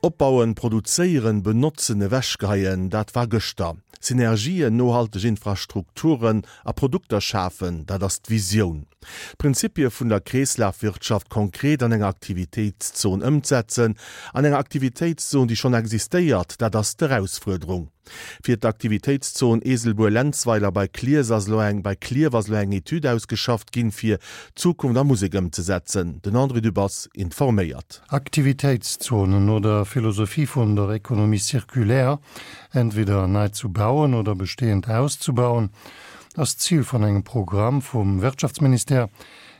Opbauen, produzéieren, benotzen, ewechgeheien, dat war gëschter. Synergien, nohalteg Infrastrukturen a Produkter schafen, dat ass d'Visioun. D'Prinzipie vun der Kreeslafwirtschaft konkret an enger Aktivitéitszon ëmzetzen, an enger Aktivitéitszon, déi schonn existéiert, dat ass d'Erausfuerderung. Fir d'Aktivitéitszon Eeselbuer-Lenzweiler bei Cliers ass elo eng bei Klierf ass elo eng Etüd ausgeschafft ginn, fir Zukunft a Musek ëmzesetzen. Den André Dübbers informéiert. Aktivitéitszonen no der Philosophie vun der Économie circulaire, entweder nei zu bauen oder bestehend auszubauen, ass d'Zil vun engem Programm vum Wirtschaftsministère,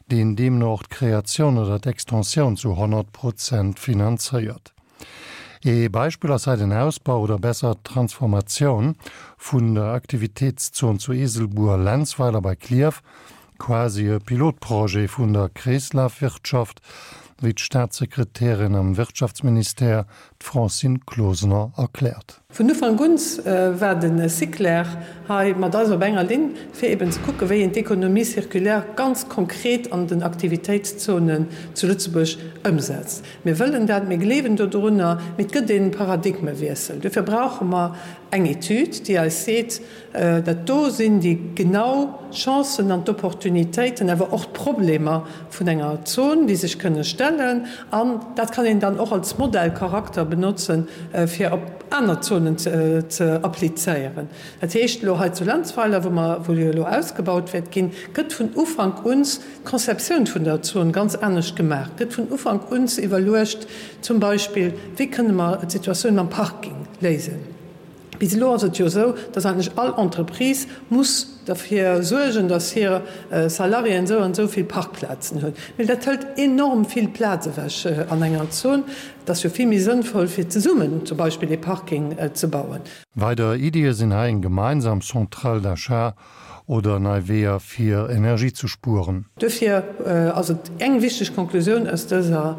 deen deemno och d'Kreatioun oder d'Extensioun zu 100 Prozent finanzéiert. Ee Beispill ass hei den Ausbau oder besser d'Transformatioun vun der Aktivitéitszon zu Eeselbuer-Lenzweiler bei Klierf, quasi e Pilotprojet vun der Kreeslafwirtschaft, wéi d'Staatssekretärin am Wirtschaftsministère, d'Francine Closener, erkläert. Vun Ufank un war de Siclair hei mat eis op enger Linn, fir eben ze kucken, wéi een d'Économie circulaire ganz konkret an den Aktivitéitszonen zu Lëtzebuerg ëmsetzt. Mir wëllen dat, mir gleewen dodrunner, mee et gëtt e Paradigmewiessel. Dofir brauche mer eng Etüd, déi eis seet, Dat do sinn déi genau Chancen an d'Opportunitéiten, awer och d'Problemer vun enger Zon, déi sech kënne stellen. An dat kann een dann och als Modellcharakter benotzen, fir op aner Zonen ze applizéieren. Dat heescht, elo hei zu Lenzweiler, wou mer, wou jo elo ausgebaut wäert ginn, gëtt vun Ufank un d'Conceptioun vun der Zon ganz anescht gemaach, gëtt vun Ufank un iwwerluecht, zum Beispill, wéi kënne mer d'Situatioun mam Parking léisen. Bis elo ass et jo esou, dass eigentlech all Entreprise muss derfir suergen, dass hir Salariéen esou an esou vill Parkplazen hunn. Mee dat hëlt enorm vill Plaz ewech an enger Zon. Et ass jo vill méi sënnvoll, fir zesummen zum Beispill ee Parking ze bauen. Weider Iddie sinn hei eng gemeinsam Centrale d'achat oder nei Weeër fir Energie ze spueren. Duerfir ass et eng wichteg Konklusioun aus dëser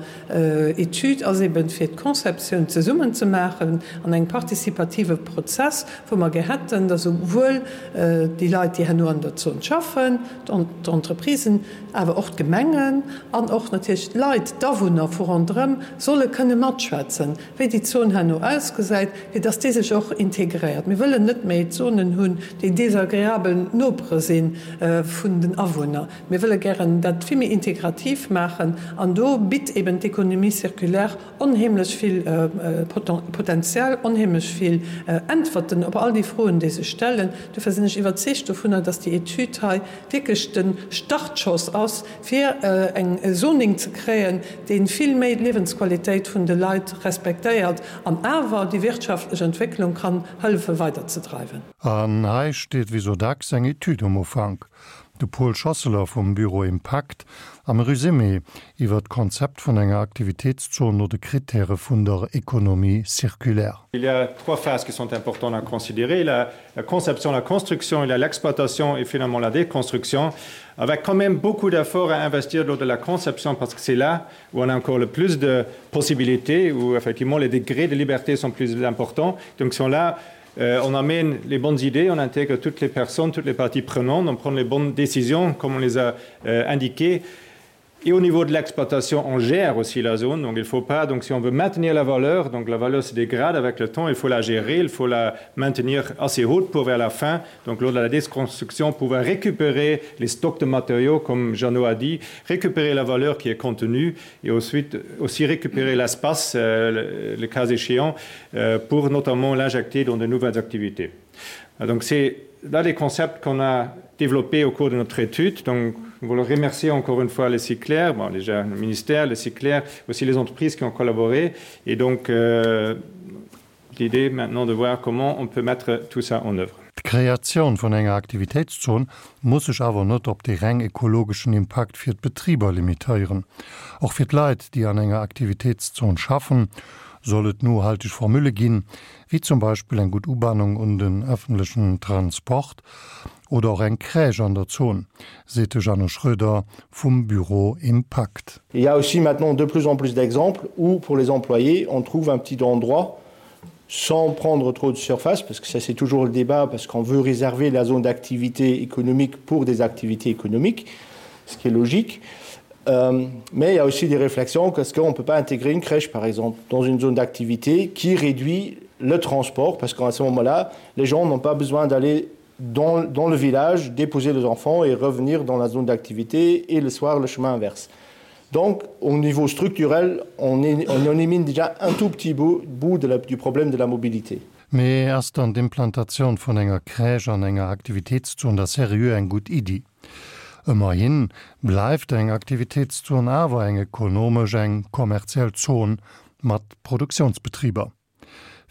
Etüd ass eben, fir d'Conceptioun zesummen ze maachen an engem participative Prozess, wou mer gär hätten, dass esouwuel déi Leit, déi herno an der Zon schaffen, d'Entreprisen, awer och d'Gemengen an och natierlech d'Leit, d'Awunner vu ronderëm solle kënne matschwätzen, wéi déi Zon herno ausgesäit, fir dass déi sech och integréiert. Mir wëllen net méi Zonen hunn, déi desagreabel Nopere si vun den Awunner. Mir wëlle gären dat vill méi integrativ maachen an do bitt eben d'Économie circulaire onheemlech vill Potential, onheemlech vill Äntwerten op all déi Froen, déi sech stellen. Dofir sinn ech iwwerzeegt dovunner, dass déi Etüd hei wierklech de Startschoss ass, fir eng Zoning ze kréien, dee vill méi d'Liewensqualitéit vun de Leit respektéiert an awer déi wirtschaftlech Entwécklung kann hëllefe weiderzedreiwen. An hei steet wéi sou dacks eng Etüd um Ufank. De Paul Schosseler vum Büro Impakt am Resumé iwwer d'Konzept vun enger Aktivitéitszon no de Kritäre vun der Économie circulaire. Il y a trois phases qui sont importantes à considérer, la la conception, la construction, il y a l'exploitation et finalement la déconstruction, avec quand même beaucoup d'efforts à investir lors de la conception parce que c'est là où on a encore le plus de possibilités, où effectivement les degrés de liberté sont plus importants. Donc sont là, euh, on amène les bonnes idées, on intègre toutes les personnes, toutes les parties prenantes, on prend les bonnes décisions comme on les a euh, indiquées. Et au niveau de l'exploitation, on gère aussi la zone, donc il faut pas donc si on veut maintenir la valeur, donc la valeur se dégrade avec le temps, il faut la gérer, il faut la maintenir assez haute pour vers la fin, donc lors de la déconstruction pouvoir récupérer les stocks de matériaux comme Jeannot a dit, récupérer la valeur qui est contenue et ensuite aussi récupérer l'espace euh, le, le cas échéant euh, pour notamment l'injecter dans de nouvelles activités. Donc c'est là les concepts qu'on a développés au cours de notre étude. Donc nous voulons remercier encore une fois les cyclaires, bon, déjà le ministère, les cyclaires, aussi les entreprises qui ont collaboré et donc euh, l'idée maintenant de voir comment on peut mettre tout ça en œuvre. D'Kreatioun vun enger Aktivitéitszon muss sech awer net op de reng ekologeschen Impakt fir d'Betriber limitéieren. Och fir d'Leit, déi an enger Aktivitéitszon schaffen, soll et nohalteg Formule ginn, wéi zum Beispill eng gutt Ubannung un den ëffentlechen Transport oder och eng Crèche an der Zon, seet de Jeannot Schroeder vum Büro Impakt. Il y a aussi maintenant de plus en plus d'exemples où pour les employés on trouve un petit endroit sans prendre trop de surface parce que ça c'est toujours le débat parce qu'on veut réserver la zone d'activité économique pour des activités économiques, ce qui est logique. Euh, mais il y a aussi des réflexions qu'est-ce qu'on ne peut pas intégrer une crèche par exemple dans une zone d'activité qui réduit le transport parce qu'à ce moment-là, les gens n'ont pas besoin d'aller dans, dans le village, déposer les enfants et revenir dans la zone d'activité et le soir le chemin inverse. Donc au niveau structurel, on, est, on élimine déjà un tout petit bout, bout de la, du problème de la mobilité. Mee ass dann d'Implantatioun vun enger Crèche an enger Aktivitéitszon da seriö eng gutt Iddi? Ëmmerhin bleift eng Aktivitéitszon awer eng ekonomesch, eng kommerziell Zon mat Produktiounsbetriber.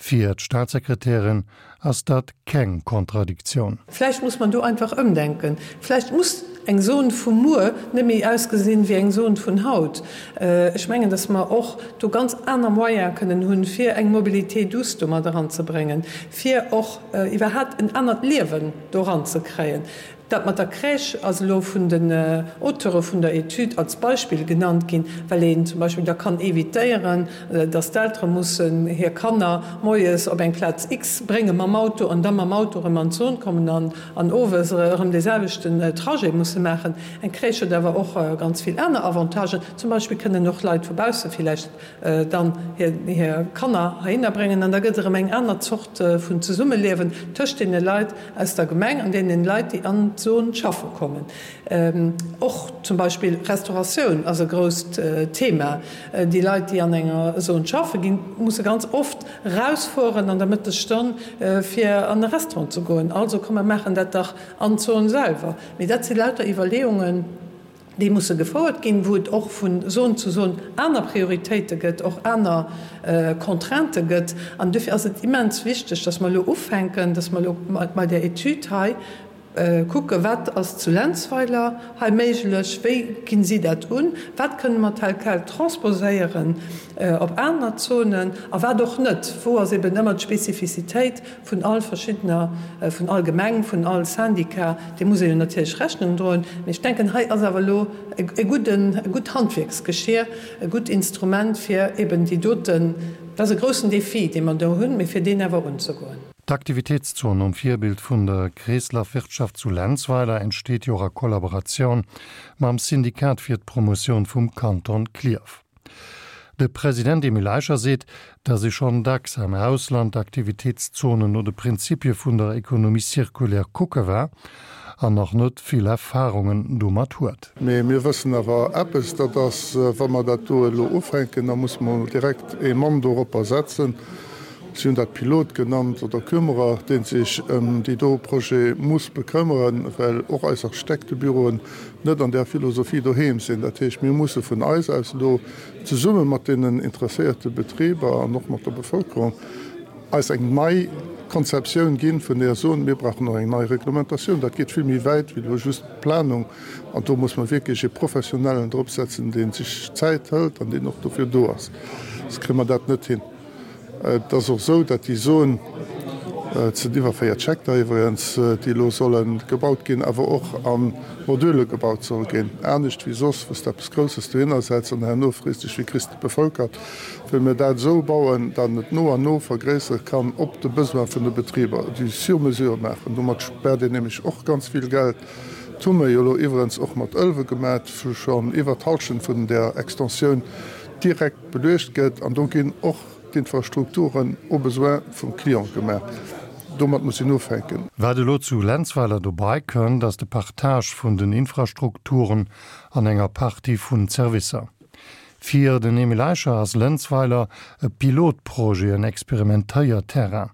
Fir d'Staatssekretärin ass dat keng Kontradiktioun. Vläicht muss man do einfach ëmdenken. Vläicht muss eng Zon vu muer net méi ausgesinn wéi eng Zon vun haut. Ech mengen, dass mer och do ganz aner Moyene kënnen hunn, fir eng Mobilité douce do mat eranzebréngen, fir och iwwerhaapt en anert Liewen do eranzekréien. Dat mat der Crèche ass elo vun den Auteure vun der Etüd als Beispill genannt ginn, well een zum Beispill da kann evitéieren, dass d'Eltere mussen hir Kanner moies op eng Plaz X brénge mam Auto an da mam Auto erëm an d'Zon kommen an an owes erëm dee selwechten Trajet musse maachen. Eng Crèche huet awer och ganz vill aner Avantagen. Zum Beispill kënnen och Leit vu bausse villäicht dann hir Kanner heihinner bréngen an da gëtt erëm eng aner Zort vun Zesummeliewen tëscht deene Leit aus der Gemeng an deenen Leit, déi an d'Zon schaffe kommen. Och zum Beispill Restauratioun ass e grousst Thema. Déi Leit, déi an enger Zon schaffe ginn, musse ganz oft erausfueren an der Mëttesstonn, fir an e Restaurant ze goen. Also komm mer maachen dat dach an d'Zon selwer. Mee dat si lauter Iwwerleeungen, déi musse gefouert ginn, wou et och vu Zon zu Zon aner Prioritéite gëtt, och aner Contraintë gëtt. An dofir ass et immens wichteg, dass mer elo ufänken, dass mer elo bei där Etüd hei kucken, wat ass zu Lenzweiler hei méiglech, wéi ginn si dat un, wat kënne mer tel quel transposéieren op aner Zonen a wat och net, wou ass eben ëmmer d'Spezifizitéit Vun all verschiddener, vun all Gemeng, vun all Syndicat, deem muss ee jo natierlech Rechnung droen. Mee ech denken, hei ass awer elo e gudden, e gutt Handwierksgeschier, e gutt Instrument, fir eben déi doten, dat ass e groussen Défi, dee mer do hunn, mee fir deen awer unzegoen. D'Aktivitéitszon nom Virbild vun der Kreeslafwirtschaft zu Lenzweiler entsteet jo och a Kollaboratioun mam Syndikat fir d'Promotioun vum Kanton Klierf. De President Emile Eicher seet, datt ee schonn dacks am Ausland Aktivitéitszonen no de Prinzipie vun der Économie circulaire kucke war an nach net vill Erfarungen domat huet. Mee mir wëssen awer eppes, dat ass, wa mer dat do elo ufänken, da musse mer direkt ee Mann doropper setzen, si hunn dat Pilot genannt oder Kümmerer, dee sech ëm déi do Projet muss bekëmmeren, well och eis Architektebüroen net an där Philosophie doheem sinn. Dat heescht, mir musse vun eis aus elo zesumme mat deenen interesséierte Betriber an och mat der Bevölkerung eis eng nei Konzeptioun ginn, vun där soen, mir brauchen och eng nei Reglementatioun. Dat geet vill méi wäit wéi elo just d'Planung. An do muss mer wierklech ee Professionellen dropsetzen, dee sech Zäit hëlt an deen och dofir do ass. Soss kréie mer dat net hin. Et ass och esou, datt déi Zon, et sinn iwwer 40 Hektar iwwregens, déi elo solle gebaut ginn, awer och a Module gebaut soll ginn. Anescht wéi soss, wou s de eppes Grousses dohinner setz an herno frees dech, wéi kriss de et bevölkert, wëlle mir dat esou bauen, datt et no an no vergréissere kann op de Besoin vun de Betriber, du sur mesure maachen. Domat späert een nämlech och ganz vill Geld. Dat hu mer jo elo iwwerens och mat Ëlwe gemat, wou schonn iwwer d'Halschent vun där Extensioun direkt Beluecht gëtt an do ginn och d'Infrastrukturen au besoin vum Client gemaach. Domat muss een ufänken. Wat elo zu Lenzweiler dobei kënnt, ass de Partage vun den Infrastrukturen an enger Partie vun Servicer. Fir den Emile Eicher ass Lenzweiler e Pilotprojet, en Experimentéierterrain.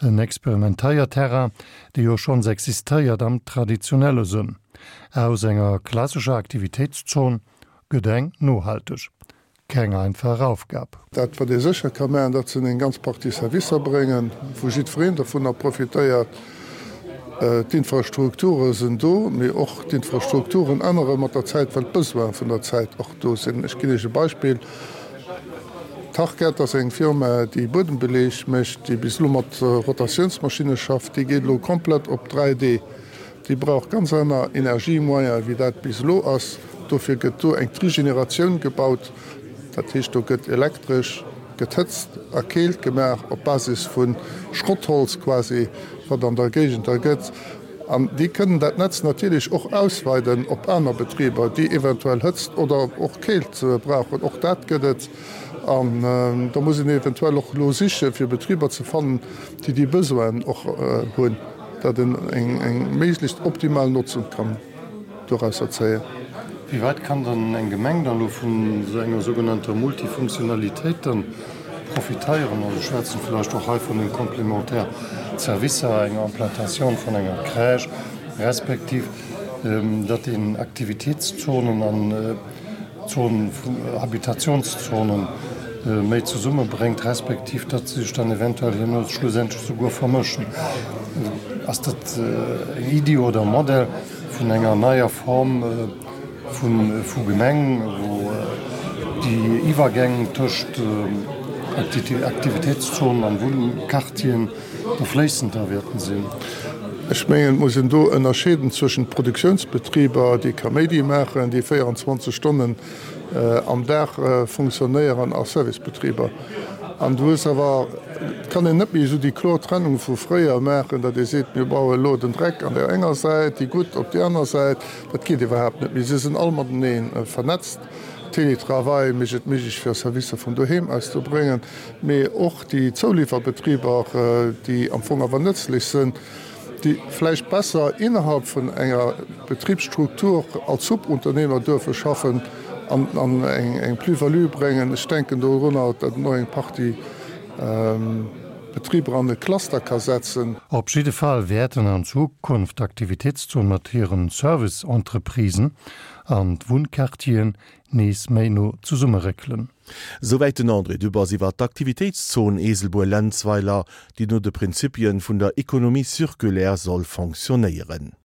En Experimentéierterrain, dee jo schonns existéiert am traditionelle Sënn. Aus enger klassescher Aktivitéitszon gëtt eng nohalteg. Keng einfach Aufgab. Dat wat ee sécher ka maachen, dat sinn eng ganz Partie Servicer bréngen, wou jiddwereen dovunner profitéiert. D'Infrastrukture sinn do, mee och d'Infrastrukturen ännere mat der Zäit, well d'Besoine vun der Zäit och do sinn. Ech ginn Iech e Beispill, Tarkett ass eng Firma, déi Buedembeleeg mécht, déi bis elo mat Rotatiounsmaschinne schafft. Déi geet elo komplett op 3D. Déi brauch ganz aner Energiemoyene wéi dat bis elo ass. Dofir gëtt do eng Trigeneratioun gebaut. Dat heescht, do gëtt elektresch gethëtzt a keelt gemaach op Basis vu Schrottholz quasi, wat an der Géigend da gëtt. An déi kënnen dat Netz natierlech och ausweiden op aner Betriber, déi eventuell Hëtzt oder och Keelt brauchen. Och dat gëtt et. An da muss een eventuell och elo siche fir Betriber ze fannen, déi déi Besoinen och hunn, datt een eng méiglechst optimal Notzung kann dorausser zéien. Wéi wäit kann dann eng Gemeng dann elo vun esou enger sougenannter Multifunktionalitéit dann profiteieren? Also ech schwätzen vläicht och hei vun den complémentaires Servicer, enger Implantatioun vun enger Crèche, respektiv datt een Aktivitéitszonen an Zonen, Habitationszonen méi zesummebréngt, respektiv datt se sech dann eventuell herno schlussendlech souguer vermëschen. Ass dat eng Iddi oder e Modell vun enger neier Form vu Gemeng, wou déi Iwwergäng tëscht Aktivitéitszonen an Wunnquartieren da fléissender wäerten sinn? Ech mengen, et muss een do ënnerscheeden zwëschent Produktionsbetriber, déi Kaméidi maachen, déi 24 Stonnen am Dag funktionéieren, a Servicebetriber. An du hues awer, et kann een net méi esou déi kloer Trennung vu fréier maachen, datt ee seet, mir baue elo den Dreck an där enger Säit, déi gutt op déi aner Säit. Dat geet iwwerhaapt net méi. Se sinn all matenee vernetzt. Télétravail mécht et méiglech, fir Servicer vun doheem aus ze bréngen. Mee och déi Zouliwwerbetriber, déi am Fong awer nëtzlech sinn, déi vläicht besser innerhalb vun enger Betribsstruktur als Subunternehmer duerfe schaffen an eng Plus-value bréngen. Ech denken dorunner, datt een och eng Partie Betriber an e Cluster ka setzen. Op jidde Fall wäerten an Zukunft d'Aktivitéitszone mat hiren Service-Entreprisen an d'Wunnquartieren nees méi no zesummeréckelen. Souwäit den André Dübbers iwwer d'Aktivitéitszon Eeselbuer-Lenzweiler, déi no de Prinzipien vun der Économie circulaire soll fonctionnéieren.